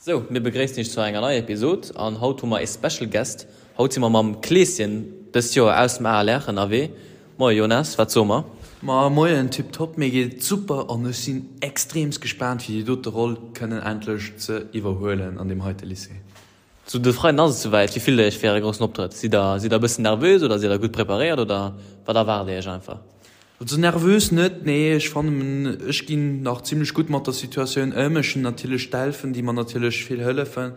Sou, mir begréissen iech zu enger neier Episod an haut hu mer ee Special Guest. Haut si mer mam Kleeschen dëst Joer aus dem ALR ënnerwee. Moie Jonas, wat soe mer? Ma moien, tiptop, mir geet et super an ech sinn extreemst gespaant fir déi dote Roll kënnen endlech ze iwwerhuelen an deem heite Lycée. Sou, de Freiden ass et souwäit. Wéi fillt der iech fir äre groussen Optrëtt? Sidd der sidd der e bëssen nervös oder sidd der gutt preparéiert oder wat erwaart dir iech einfach? Also nervös net, nee, ech fannen ech ginn nach zimlech gutt mat der Situatioun ëm. Ech hunn natierlech d'Elfen, déi mer natierlech vill hëllefen.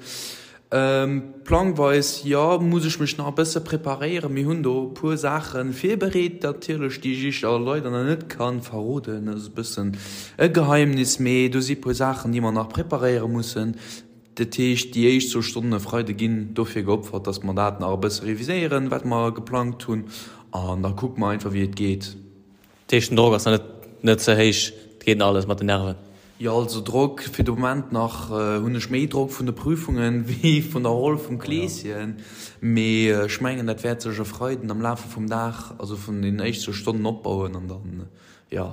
Plangweis, jo, muss ech mech nach e bësse preparéieren. Mir hunn do e puer Saache virbereet natierlech, déi ech iech awer leider nach net ka verroden. Dat ass e bëssen e Geheimnis, mee do si puer Saachen, déi mer nach preparéiere mussen. Dat heescht, déi éischt zwou Stonnen e Freide ginn dofir geopfert, dass mer dat nach e bësse reviséieren, wat mer geplangt hunn, an da kucke mer einfach, wéi et geet. Dat heescht, den Drock ass nach net net ze héich, et geet nach alles mat den Nerven? Jo, also Drock, fir de Moment nach hunn ech méi Drock vun de Prüfungen wéi vun der Roll vum Kleeschen. Mee ech mengen, dat wäert sech e Freiden am Lafe vum Dag, also vun den éischt zwou Stonnen opbauen an dann, jo.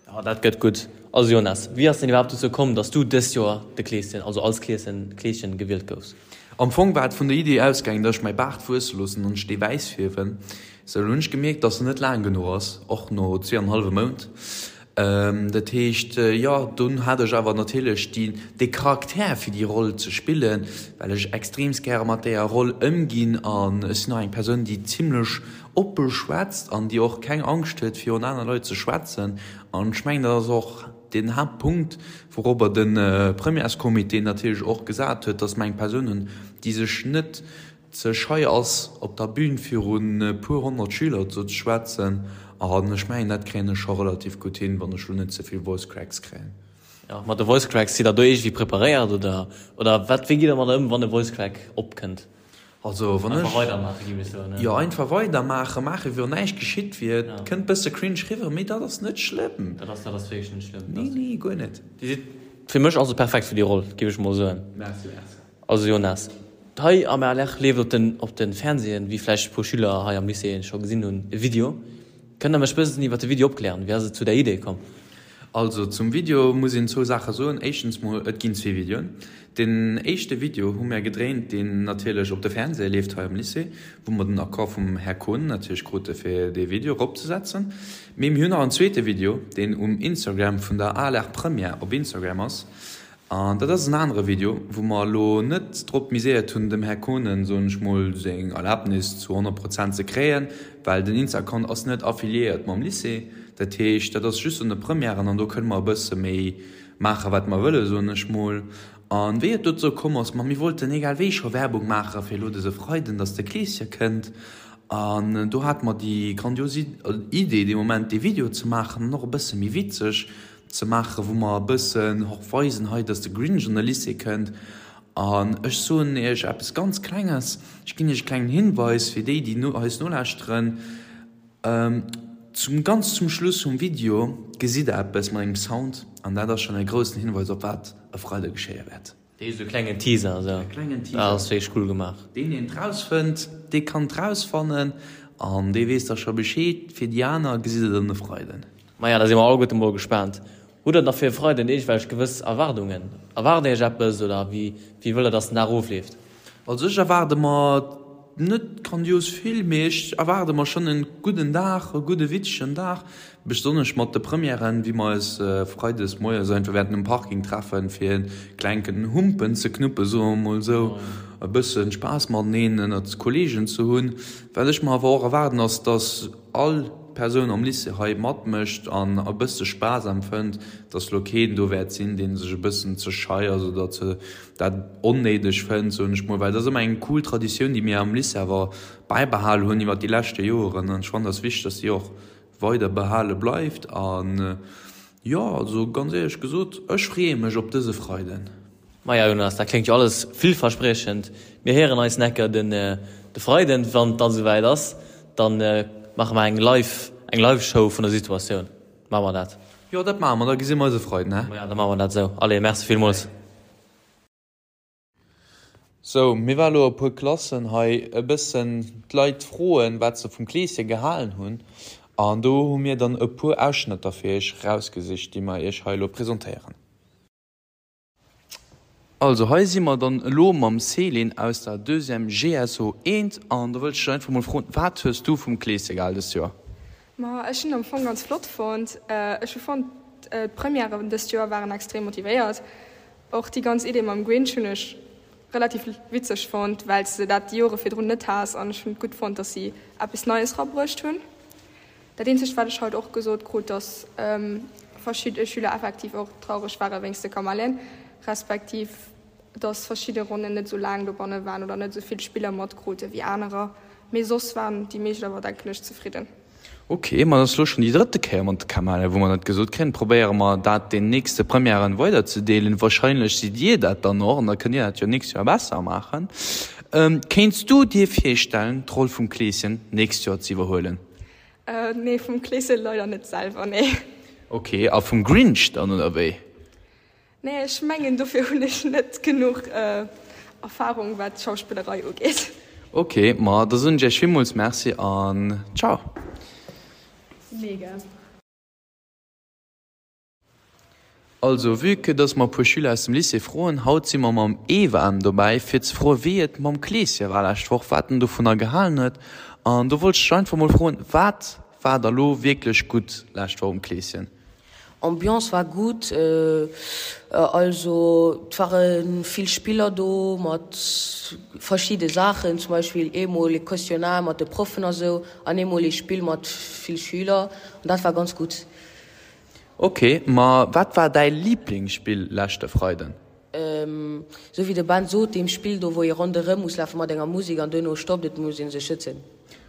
Jo, dat gëtt gutt. Also Jonas, wéi ass denn iwwerhaapt dozou komm, dass du dëst Joer de Kleeschen, also als Kleeschen, Kleeschen gewielt goufs? Am Fong war et vun der Idee ausgaangen, dass ech mäi Baart wuesse loossen an ech dee wäiss fierwen. Sou, lo hunn ech gemierkt, dass en net laang genuch ass, och no zweeanenhallwe Mount. Dat heescht, jo, dunn hat ech awer natierlech déi, dee Charakter fir déi Roll ze spillen, well ech extreemst gäre mat deeër Roll ëmginn an ech sinn och eng Persoun, déi zimlech Oppe schwätzt an déi och keng Angscht huet virun aner Leit ze schwätzen. An ech mengen, dat ass och deen Haaptpunkt, wourobber de Premièrescomité natierlech och gesat huet, dass mer eng Persoun hunn, déi sech net ze schei ass, op der Bühn virun e puer 100 Schüler ze schwätzen. An ech mengen, dat kréien ech scho relativ gutt hin, wann ech elo net ze vill Voice Cracks kréien. Jo, mat de Voice Cracks, sidd Der do iergendwéi preparéiert oder, oder wat, wéi gitt Der mat ëm, wann e Voice Crack opkënnt? Also wann Einfach ech. weidermaachen, géif ech soen, ne? Jo, einfach weidermaachen, maachen wéi wann näischt geschitt wier. Et kënnt bësse cringe riwwer, mee dat ass net schlëmm. Dat ass, dat ass wierklech net schlëmm. Nee, nee, guer net. Dir sidd fir mech also perfekt fir déi Roll, géif ech mol soen. Merci, merci. Also Jonas, hei am ALR leeft op den, op den Fernsehen, wéi vläicht e puer Schüler hei am Lycée scho gesinn hunn, e Video. Kënnt der mech bëssen iwwer de Video opklären? Wéi ass et zu där Idee komm? Also zum Video muss een zwou Saache soen. Éischtens mol, et ginn zwee Videoen. Deen éischte Video hu mär gedréint, deen natierlech op de Fernseher leeft hei am Lycée, wou mer den Accord vum Här Kohn natierlech krute fir dee Video eropzesetzen. Mee mir hunn nach en zweete Video, deen um Instagram vun der ALR Première op Instagram ass. An dat ass en anere Video, wou mer elo net drop miséiert hunn, dem Här Kohnen, soen ech mol, seng Erlaabnis zu 100 Prozent ze kréien, well den Insta-Account ass net affiliéiert mam Lycée. Dat heescht, dat ass just un de Premièren an do kënne mer e bësse méi maachen, wat mer wëllen, soen ech mol. A wéi et dozou komm ass, ma mir wollten egal wéi scho Werbung maache fir elo dëse Freiden, dass de Kleeschen kënnt. An do hate mer déi grandios Idee dee Moment, dee Video ze maachen an och e bësse méi witzeg. Ze maachen, wou mer e bëssen och weisen hei, dass de Grinch an de Lycée kënnt. An ech soen Iech eppes ganz Klenges, ech ginn Iech e klengen Hinweis fir déi, déi eis nolauschteren, Zum, ganz zum Schluss vum Video gesitt Der eppes mat engem Sound an dat ass schonn e groussen Hinweis op wat e Freide geschéie wäert. Dee sou klengen Teaser esou. E klengen Teaser. Dat ass wierklech cool gemaach. Deen deen et rausfënnt, dee kann et rausfannen an dee weess da scho Bescheed. Fir déi aner gesitt et en e Freiden. Maja, da si mer alleguerte mol gespaant. Hutt der da fir e Freiden iergendwelch gewëss Erwaardungen? Erwaart Dir Iech eppes oder wéi wéi wëllt der, dass den Dag ofleeft? Also ech erwaarde mer net grandios vill, mee ech erwaarde mer schonn en gudden Dag, e gudde witzegen Dag, besonnesch mat de Premièren, wéi mer eis freides moies einfach wäerten um Parking treffen, fir en klenken Humpen ze knuppen, soe mer mol esou, e bëssen Spaass mateneen ënnert Kollegen ze hunn. Wat ech mer awer och erwaarden ass, dass all Persoun am Lycée hei matmécht an e bësse Spaass empfënnt, dass lo keen do wäert sinn, dee sech e bëssen ze schei ass oder ze dat onnéideg fënnt, soen ech mol, well dat ass ëmmer eng cool Traditioun, déi mir am Lycée awer bäibehal hunn iwwert déi leschte Joeren an ech fannen, dat ass wichteg, dass déi och weider behale bleift an jo, also ganz éierlech gesot, ech freeë mech op dëse Freiden. Maja Jonas, dat kléngt jo alles villverspriechend. Mir héieren eis necker den de Freiden, wann et dann esouwäit ass, dann maache mer eng live eng live Show vun der Situatioun. Maache mer dat? Jo, dat maache mer, da gesi mer eis e Freiden, he? Maja, da maache mer dat esou. Allez, merci villmools. Sou, mir war elo e puer Klassen hei e bëssen d'Leit froen, wat se vum Kleeschen gehalen hunn. An do hu mir dann e puer Ausschnëtter fir iech rausgesicht, déi mer iech hei elo presentéieren. Also hei si mer dann elo mam Céline aus der Deuxième GSO eent an do wëllt ech dech einfach mol froen, wat hues du vum Kleeschen gehal dëst Joer? Ma ech hunn am Fong ganz flott fonnt. Ech hu fonnt d'Premièren dëst Joer waren extrem motivéiert. Och déi ganz Idee mam Grinch hunn ech relativ witzeg fonnt, well s de dat déi Jore virdrun net has an ech hunn et gutt fonnt, dass si eppes Neies rabruecht hunn. Dat eenzegt wat ech haut och gesot krut, dass verschidde Schüler effektiv och traureg ware wéinst de Kamellen, respektiv dass verschidde Ronnen net esou laang dobanne waren oder net esou vill Spiller matkrute wéi anerer. Mee soss waren déi meescht awer denken ech zefridden. Ok, ma dat ass elo schonn déi drëtte Kéier mat de Kamellen, wou mer dat gesot kréien. Probéiere mer dat den nächste Premièren weiderzedeelen. Wahrscheinlech sidd Dir dat dann och an da kënnt Dir dat jo nächst Joer besser maachen. Kéints du dir virstellen, d'Roll vum Kleeschen nächst Joer ze iwwerhuelen? Nee, vum Kleeschen leider net selwer, nee. Ok, a vum Grinch dann, oder wéi? Nee, ech mengen dofir hunn ech net genuch Erfahrung wat d'Schauspillerei ugeet. Ok, ma da soen ech iech villmools Merci an ciao. Mega. Also, vue que dass mer e puer Schüler aus dem Lycée froen, haut si mer mam Evan dobäi fir ze froen wéi et mam Kleeschen war lescht Woch, wat en dovunner gehalen huet. An do wollt ech dech einfach mol froen, wat war da lo wierklech gutt lescht Woch um Kleeschen? Ambiance war gutt, also et ware vill Spiller do mat verschidde Saachen, zum Beispill eemol ee Questionnaire mat de Proffen a sou an eemol ee Spill mat vill Schüler an dat war ganz gutt. Ok, ma wat war däi Liblingsspill leschte Freiden? Sou wéi de Ben sot, deem Spill do wou ee ronderëm muss lafe mat enger Musek an duerno stoppt et, muss ee sech schützen.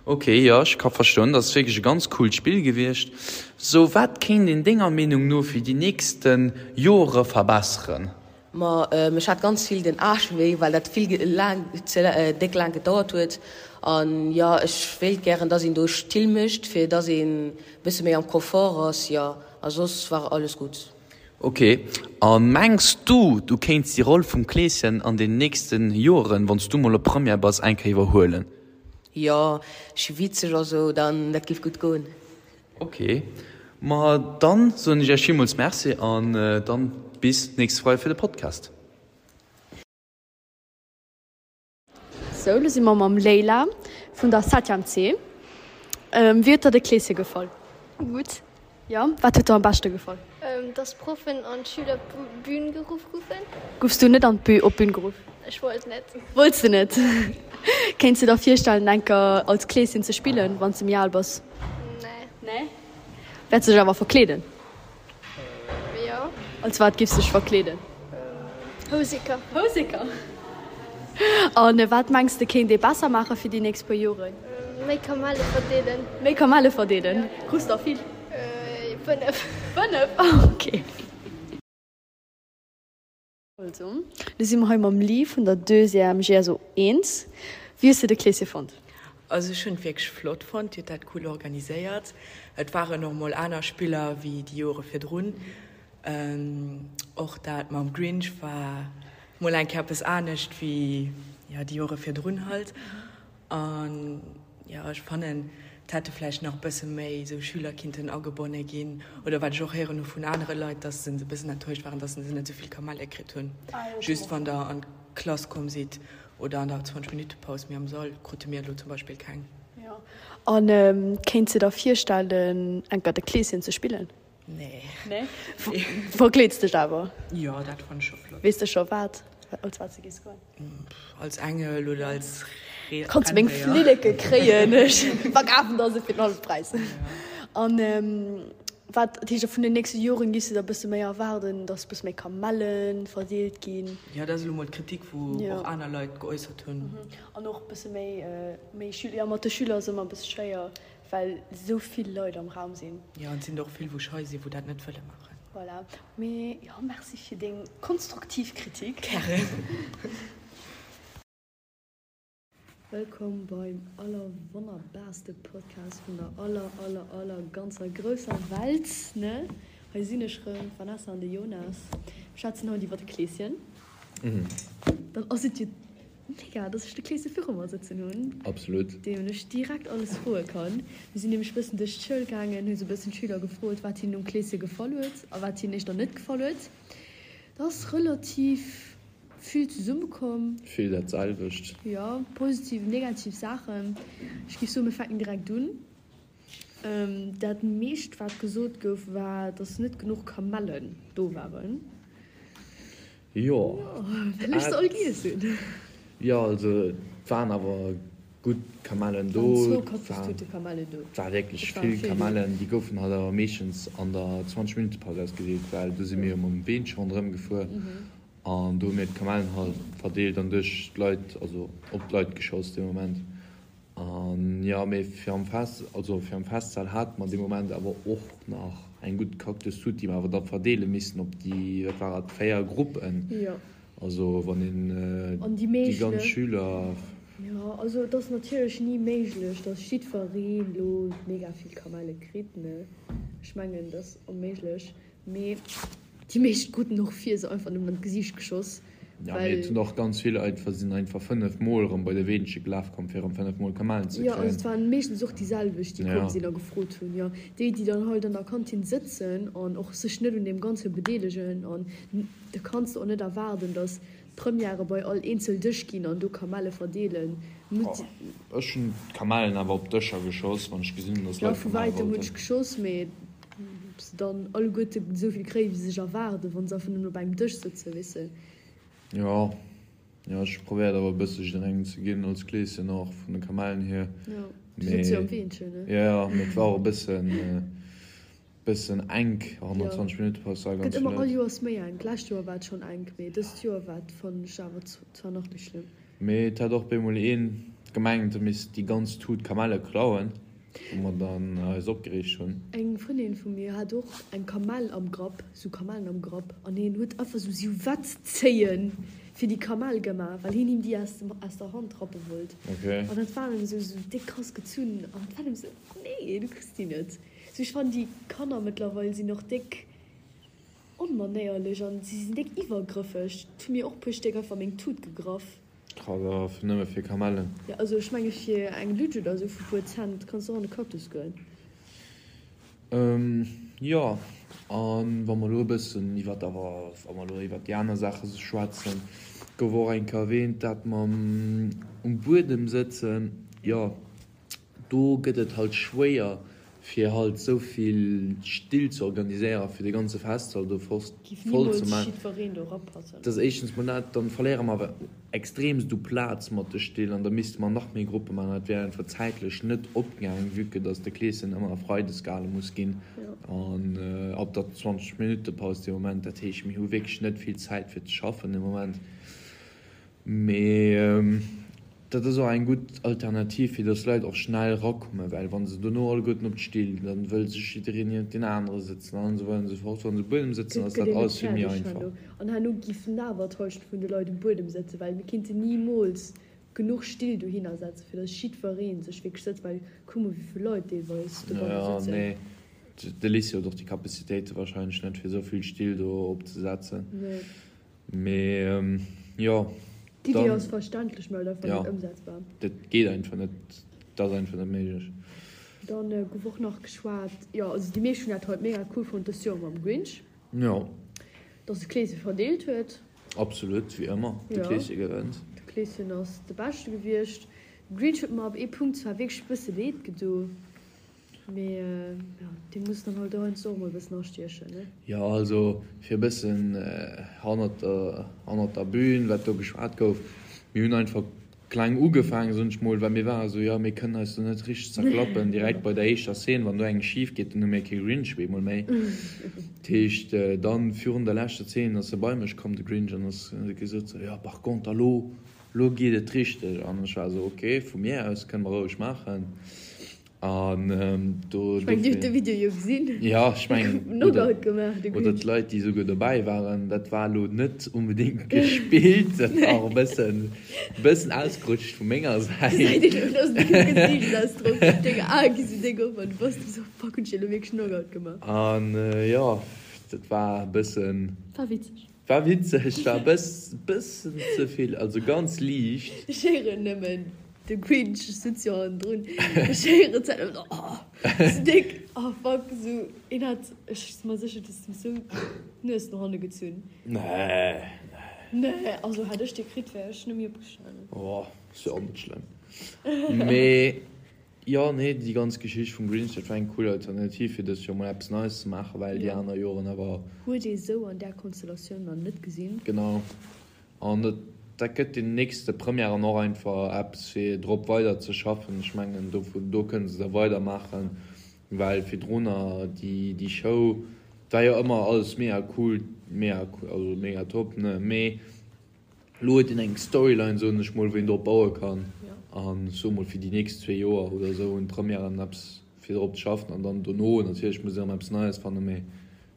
Ok, jo ech ka verstoen, dat ass wierklech e ganz coolt Spill gewiescht. Sou, wat kéint een denger Meenung no fir déi nächste Jore verbesseren? Ma ech hat ganz vill den Aarsch wéi, well dat vill laang, ze déck laang gedauert huet. An jo, ech wéilt gären dass een do Still mécht, fir dass een bësse méi am Confort ass, jo. A soss war alles gutt. Ok, a mengs du, du kéints déi Roll vum Kleeschen an den nächsten Joeren, wann s du mol op Première bass, eng Kéier iwwerhuelen? Jo, ech si witzeg a sou, dann dat géif gutt goen. Ok, ma dann soen ech iech villmools Merci an dann bis nächste Freide fir de Podcast. Sou, lo si mer mam Leila vun der Septième C. Wéi huet der de Kleeschen gefall? Gutt. Jo, wat huet der am beschte gefall? Dass d'Proffen an d'Schüler op d'Bün geruff goufen. Goufs du net an d'Bü op d'Bün geruff? Ech wollt net. Wollts de net? Kéints de der virstellen enker als Kleeschen ze spillen, wann s de méi al bass? Nee. Nee? Wäerts de dech awer verkleeden? Jo. Als wat giffs dech verkleeden? Houseker. Houseker? An wat mengs de kéint ee besser maache fir déi nächst puer Joren? Méi Kamelle verdeelen. Méi Kamelle verdeelen? Krus der vill? 5. 5? Ok. Also, lo si mer hei mam Lee vun der Deuxième GSO 1. Wéi hues de de Kleeschen fonnt? Also ech hunn et wierklech flott fonnt, Dir hutt dat cool organiséiert. Et waren och mol aner Spiller wéi déi Jore virdrun. Och dat mam Grinch war mol eng Kéier eppes anescht wéi jo déi Jore virdrun halt. An jo, ech fannen, et hätte vläicht nach e bësse méi esou Schüler kinnten agebonne ginn. Oder wat ech och héieren hu vun anere Leit, dass se e bëssen enttäuscht waren, dass se net esou vill Kamelle kritt hunn. Just wann der an d'Klass komm sidd oder an der 20 Minutte Paus, mee am Sall krute mir elo zum Beispill keng. Jo. An kéints de der virstellen, enker de Kleeschen ze spillen? Nee. Nee? Verkleeds dech awer? Jo, dat fann ech scho flott. Weess de scho wat, als wat s de gees goen? Als Engel oder als Renndéier. Kanns meng Flilleke kréien, ech verkafen der se fir den hallwe Präis. An wat, dat heescht vun den nächste Joren giffs de der e bësse méi erwaarden, dass e bësse méi Kamelle verdeelt ginn? Jo, dat ass elo mol d'Kritik, wou och aner Leit geäussert hunn. An och e bësse méi, méi Schüler, jo mat de Schüler ass ëmmer e bësse schwéier, well esou vill Leit am Raum sinn. Jo, an et sinn der och vill, wou schei sinn, wou dat net wëlle maachen. Voilà, mee jo, merci fir deng konstruktiv Kritik. Gären. Wëllkomm beim allerwonnerbarste Podcast vun der aller aller aller ganzer grousser Welt, ne? Hei sinn ech rëm, d'Vanessa an de Jonas. Mir schwätzen haut iwwer de Kleeschen. Dann ass et jo Mega, dass ech de Kleese viru mer sëtzen hunn. Absolut. Deem ech direkt alles froe kann. Mir sinn nämlech bëssen duerch d'Schoul gaangen, hu sou bëssen d'Schüler gefrot, wat hinnen um Kleese gefall huet a wat hinnen éischter net gefall huet. Dat ass relativ Vill zesummekomm. Vill dat selwecht. Jo, positiv, negativ Saachen. Ech géif soen, mir fänken direkt un. Dat meescht, wat gesot gouf, war, dass net genuch Kamellen do waren. Jo. Well ech se all giess hunn. Jo, also et waren awer gutt Kamellen do. Et waren zwou Kaffistute Kamellen do. Et war wierklech vill Kamellen. Déi goufen halt awer meeschtens an der 20 Minutte Paus ausgedeelt, well do si mir jo mam Weenche ronderëm gefuer. An do hu mir d'Kamellen halt verdeelt an duerch d'Leit, also op d'Leit geschoss dee Moment. An jo, mee fir am Fest, also fir am Festsal hate mer dee Moment awer och nach eng gutt Cactus-Tut, déi mer awer da verdeele missten op déi, wat war et, 4 Gruppen. Jo. Also wann een An déi déi meescht, ganz ne? Schüler. Jo, also et ass natierlech ni méiglech, dass jiddwereen elo mega vill Kamelle kritt, ne? Ech mengen, dat ass onméiglech. Mee déi meescht kruten och vir se einfach nëmmen an d'Gesiicht geschoss, Ja, mee et well. hunn och ganz vill einfach, sinn einfach 5 mol erëm bei de Weenche gelaf komm fir erëm 5 mol Kamellen ze Jo, also kréien. et waren meeschtens och déi selwecht, déi komm Ja. sinn a gefrot hunn. Jo, déi, déi dann halt an der Kantin sëtzen an och sech net un deem Ganze bedeelegen. An da kanns de och net erwaarden, datt d'Premièrë bei all eenzel Dësch ginn an do Kamelle verdeelen. Oh, ech hunn d'Kamellen awer op d'Dëscher geschoss, wann ech gesinn hunn, datt Jo, Leit vu Kamelle wäitem hunn wollten. ech geschoss, mee Ob se dann alleguerte esou vill kréien, wéi se sech erwaarden, wa se einfach nëmmen op engem Dësch sëtzen, weess de. Jo, jo, ech hu probéiert awer e bësse jidderengem ze ginn, als Kleeschen och, vun de Kamellen hier. Jo, du sëtz jo am Weenchen, ne? Jo, jo, mee et war och e bëssen, bëssen enk, 120 Minutte Paus war ganz Gëtt ëmmer vill all Leit. Joers méi enk. D'lescht Joer war et schonn enk, mee dëst Joer war et, fannen ech, awer zwar nach méi schlëmm. Mee et hat och bemol een gemengt, e misst déi ganz Tut Kamelle klauen, wou mer dann eis opgereegt hunn. Eng Frëndin vu mir hat och eng Kamell am Grapp, sou Kamellen am Grapp, an hien huet einfach sou Siwetzzéien fir déi Kamell gemaach, well hien him déi aus dem, aus der Hand rappe wollt. Okay. An dat war em sou, sou déck krass gezunn, an dat war em sou, nee, du kriss déi net. Sou, ech fannen déi Kanner mëttlerweil sinn och déck Onmanéierlech an si sinn déck iwwergrëffeg. Et hu mir och puer Stéck einfach meng Tut gegraff. Krass, awer fir nëmme fir Kamellen. Jo, also ech menge fir eng Lutsch oder esou vu puer Cent kanns de och an de Cactus goen. Jo, a wa mer elo e bëssen iwwer awer, wa mer elo iwwer déi aner Saache schwätzen, gouf och eng Kéier erwähnt, dat mam um Buedem sëtzen. Jo, Do gëtt et halt schwéier fir halt sou vill Still ze organiséieren fir de ganze Festsall do voll ze man. Dat ass éischtens mol dat, dann verléiere mer awer extremst u Plaz mat de Still an da misste mer nach méi Gruppe man an dat wär einfach zäitlech net opgaang vue que dass de Kleeschen ëmmer freides gehale muss ginn an ab der 20 Minutte Paus dee Moment. Dat heescht mir hu wierklech net vill Zäit fir ze schaffen de Moment. Mee dat ass och eng gutt Alternativ, fir datt d'Leit och schnell erakommen, well wa se dono alleguerten op d'Still, da wëll sech jiddereen niewent deen anere sëtzen an esou weider an esou fort. Wa se um Buedem sëtzen, ass dat alles vill méi einfach. An herno giffen awer d'Hallschent vun de Leit um Buedem sëtzen, well mir kinnten nimools genuch Still dohinner setzen, fir datt jiddweree sech wierklech sëtzt, well kuck mol, wéi vill Leit deelweis dobanne sëtzen. Jo, nee, de Lycée huet och déi Capacitéite warscheinlech net, fir esou vill Still do opzesetzen. Nee. Mee jo, D'Idee ass verständlech, mee halt einfach net ëmsetzbar. Dat geet einfach net, dat ass einfach net méiglech. Dann gouf och nach geschwat, jo also déi meescht hunn dat haut mega cool fonnt dëst Joer mam Grinch. Jo. Dass de Kleeschen verdeelt huet. Absolut, wéi ëmmer, de Kleeschen gewënnt. De Kleeschen ass de Beschte gewiescht. De Grinch huet mer ab ee Punkt zwar wierklech e bësse leed gedo. Mee jo, dee muss dann halt heiansdo och mol e bëssen astiechen, ne? Jo, also fir e bëssen hannert der, hannert der Bühn, wat do geschwat gouf, mir hunn einfach kleng ugefaangen, soen ech mol, well mir ware sou, jo, mir kënnen eis do net richteg zerklappen direkt bei der éischter Szene, wann do eng schif geet, dann hu mir kee Grinch op eemol méi. Dat heescht, dann virun der leschter Szene ass e bei mech komm, de Grinch, an ass huet gesot sou, jo, par contre elo, elo geet et richteg. An ech war sou, ok, vu mir aus kënne mer roueg maachen. An do. Ech mengen, Dir hutt de Video jo gesinn. Jo, ech mengen. Knockout gemaach, de Oder d'Leit, déi esouguer dobäi waren, dat war elo net onbedéngt gespillt. Dat war och e bëssen, e bëssen ausgerutscht vu menger Säit. Gesäit een och aus dengem Gesiichtsausdrock. Deng Ae gi sou déck op an du bass du sou, Fuck, hunn ech elo wierklech Knockout gemaach? An jo, dat war e bëssen. War witzeg. War witzeg, war e bëssen ze vill, also ganz liicht. Ech héieren nëmmen de Grinch, ech sëtz jo hannendrun, ech héieren d'Zäit nëmmen oh, sou déck, oh fuck, sou een hat, ech si mer sécher, du hues em sou d'Nues no hanne gezunn. Nee, nee. Nee, also hätt ech dee kritt, wär ech net méi opgestanen. Oh, ass jo och net schlëmm. Mee jo, nee, déi ganz Geschicht vum Grinch, dat war eng cool Alternativ, fir dëst Joer mol eppes Neies ze maachen, well déi aner Joren awer. Huet ee sou an där Konstellatioun nach net gesinn. Genau. An dat, dat gëtt den nächste Premièren och einfach eppes, fir drop weider ze schaffen. Ech mengen, do, do kënne se da weidermaachen, well virdrunner déi, déi Show, war jo ëmmer alles mega cool, mega cool, also mega top, ne, mee elo huet een eng Storyline, soen ech mol, wou een drop baue kann. An ech soe mol, fir déi nächst zwee Joer oder esou hunn d'Premièren eppes fir drop ze schaffen an dann dono natierlech muss een erëm eppes Neies fannen, mee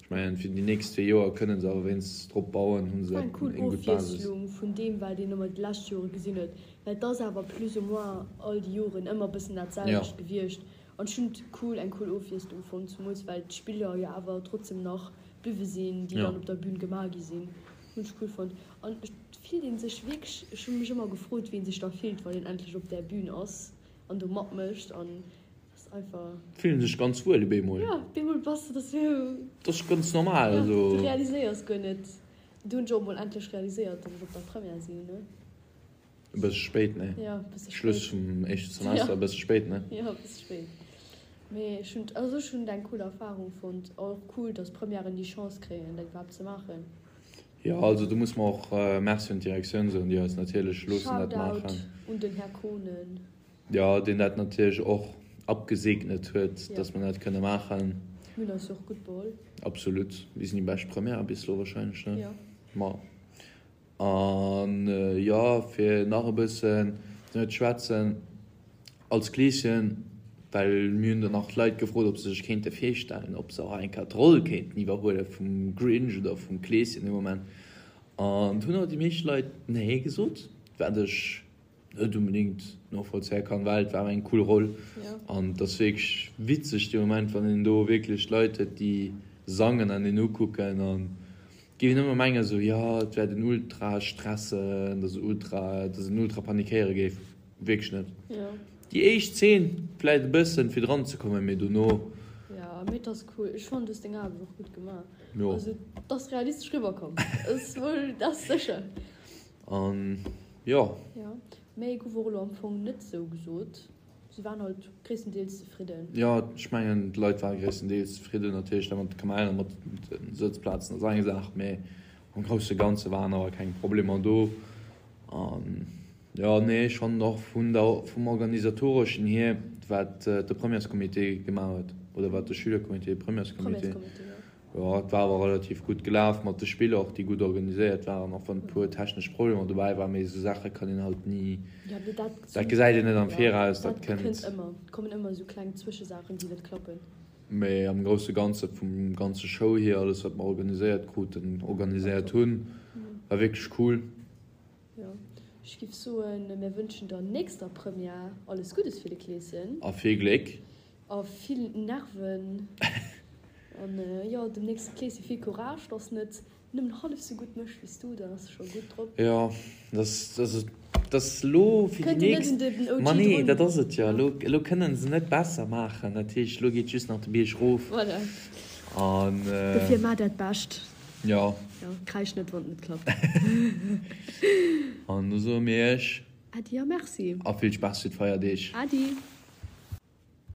Ech mengen, fir déi nächst zwee Joer kënnen se awer wéinstens drop bauen, hu se War eng cool eng gutt Basis. Ofwiesslung vun deem, wat een ëmmer déi lescht Jore gesinn huet, well et ass awer plus ou moins all déi Joren ëmmer e bëssen dat selwecht gewiescht. An ech hunn et cool, eng cool Ofwiesslung fonnt, zemools well d'Spiller jo awer trotzdem nach bliwwe sinn, déi dann op der Bühn gemaach gi sinn. Hunn ech cool fonnt. An et fillt ee sech wierklech, ech hu mech ëmmer gefrot, wéi ee sech da fillt, wann een endlech op där Bühn ass an do matmécht an Ass einfach. Fillen sech ganz wuel op eemol. Ja, op eemol bass de dass sou. Dat ass ganz normal, also. Ja, du realiséiers guer net. Du hunn ech och mol endlech realiséiert, dass ech op der Première sinn, ne? E bësse spéit, ne? Ja, e bësse spéit. Schluss vum éischte Semester, e bësse spéit, ne? Ja, e bësse spéit. Mee ech hunn, also ech hunn et eng cool Erfarung fonnt. Och cool, dass Premièren déi Chance kréien, dat iwwerhaapt ze maachen. Jo, also do muss mer och Merci un d'Direktioun soen, déi eis natierlech loossen dat maachen. Shoutout un den Här Kohnen. Jo, deen dat natierlech och abgesegnet huet, dass mer dat kënne maachen. Mir hunn eis jo och gutt beholl. Absolut. Mir sinn déi bescht Première bis elo wahrscheinlech, ne? Jo. Ma. An jo, fir nach e bëssen ze schwätzen, als Kleeschen, well mir hunn dann nach d'Leit gefrot, ob se sech kéinte virstellen, ob se och eng Kéier d'Roll kéinten iwwerhuele vum Grinch oder vum Kleeschen dee Moment. An do hunn awer déi meescht Leit Nee gesot, wat ech net unbedingt novollzéie kann, well et war awer eng cool Roll an et ass wierklech witzeg dee Moment, wann een do wierklech Leit huet, déi sangen an een ukucken an et géif een ëmmer mengen esou, jo et wäert een ultra stressen, dass ultra, dass een ultra panikéiere géif. Wierklech net. Déi éischt Zeen vläit e bëssen fir dran ze kommen, mee dono. Jo, mee et ass cool. Ech fannen du hues deng Aarbecht och gutt gemaach. Also et ass realistesch riwwerkomm, dat ass sécher. An jo. Jo, méi gouf och elo am Fong net sou gesot. Se waren halt gréisstendeels zefridden. Jo, ech mengen d'Leit ware gréisstendeels zefridden. Natierlech dat mat de Kamellen a mat de Sëtzplazen ass eng Saach, mee am grousse Ganze waren awer keng Problemer do. An jo, nee, ech fannen och vun der, vum organisatoreschen hier, wat de Premièrescomité gemaach huet oder wat de Schülercomité, Premièrescomité, Jo, et war awer relativ gutt gelaf mat de Spiller och, déi gutt organiséiert waren, och wann e puer technesch Problemer dobäi waren. Mee esou Saache kann een halt ni, dat gesäit een net am Viraus, dat kënnt. Mee am grousse Ganze vum ganze Show hier, alles wat mer organiséiert kruten, organiséiert hunn, war wierklech cool. Jo, ech giff soen, mir wënschen der nächster Première alles Guddes fir de Kleeschen. A vill Gléck. A vill Nerven. An jo, dem nächste Kleeschen vill Courage, dass net nëmmen hallef sou gutt mécht wéi s du, dann ass e scho gutt drop. Jo, dass, dass, dass elo fir déi nächst. Ma nee, dat ass et jo. Elo, elo kënnen se net besser maachen. Dat heescht, elo geet just nach de Bierg rof. Voilà. An. Dofir maach dat Bescht. Jo. Jo, kräisch net, wann et net klappt. An da soe mir iech. Äddi a Merci. A vill Spaass fir d'Feierdeeg. Äddi.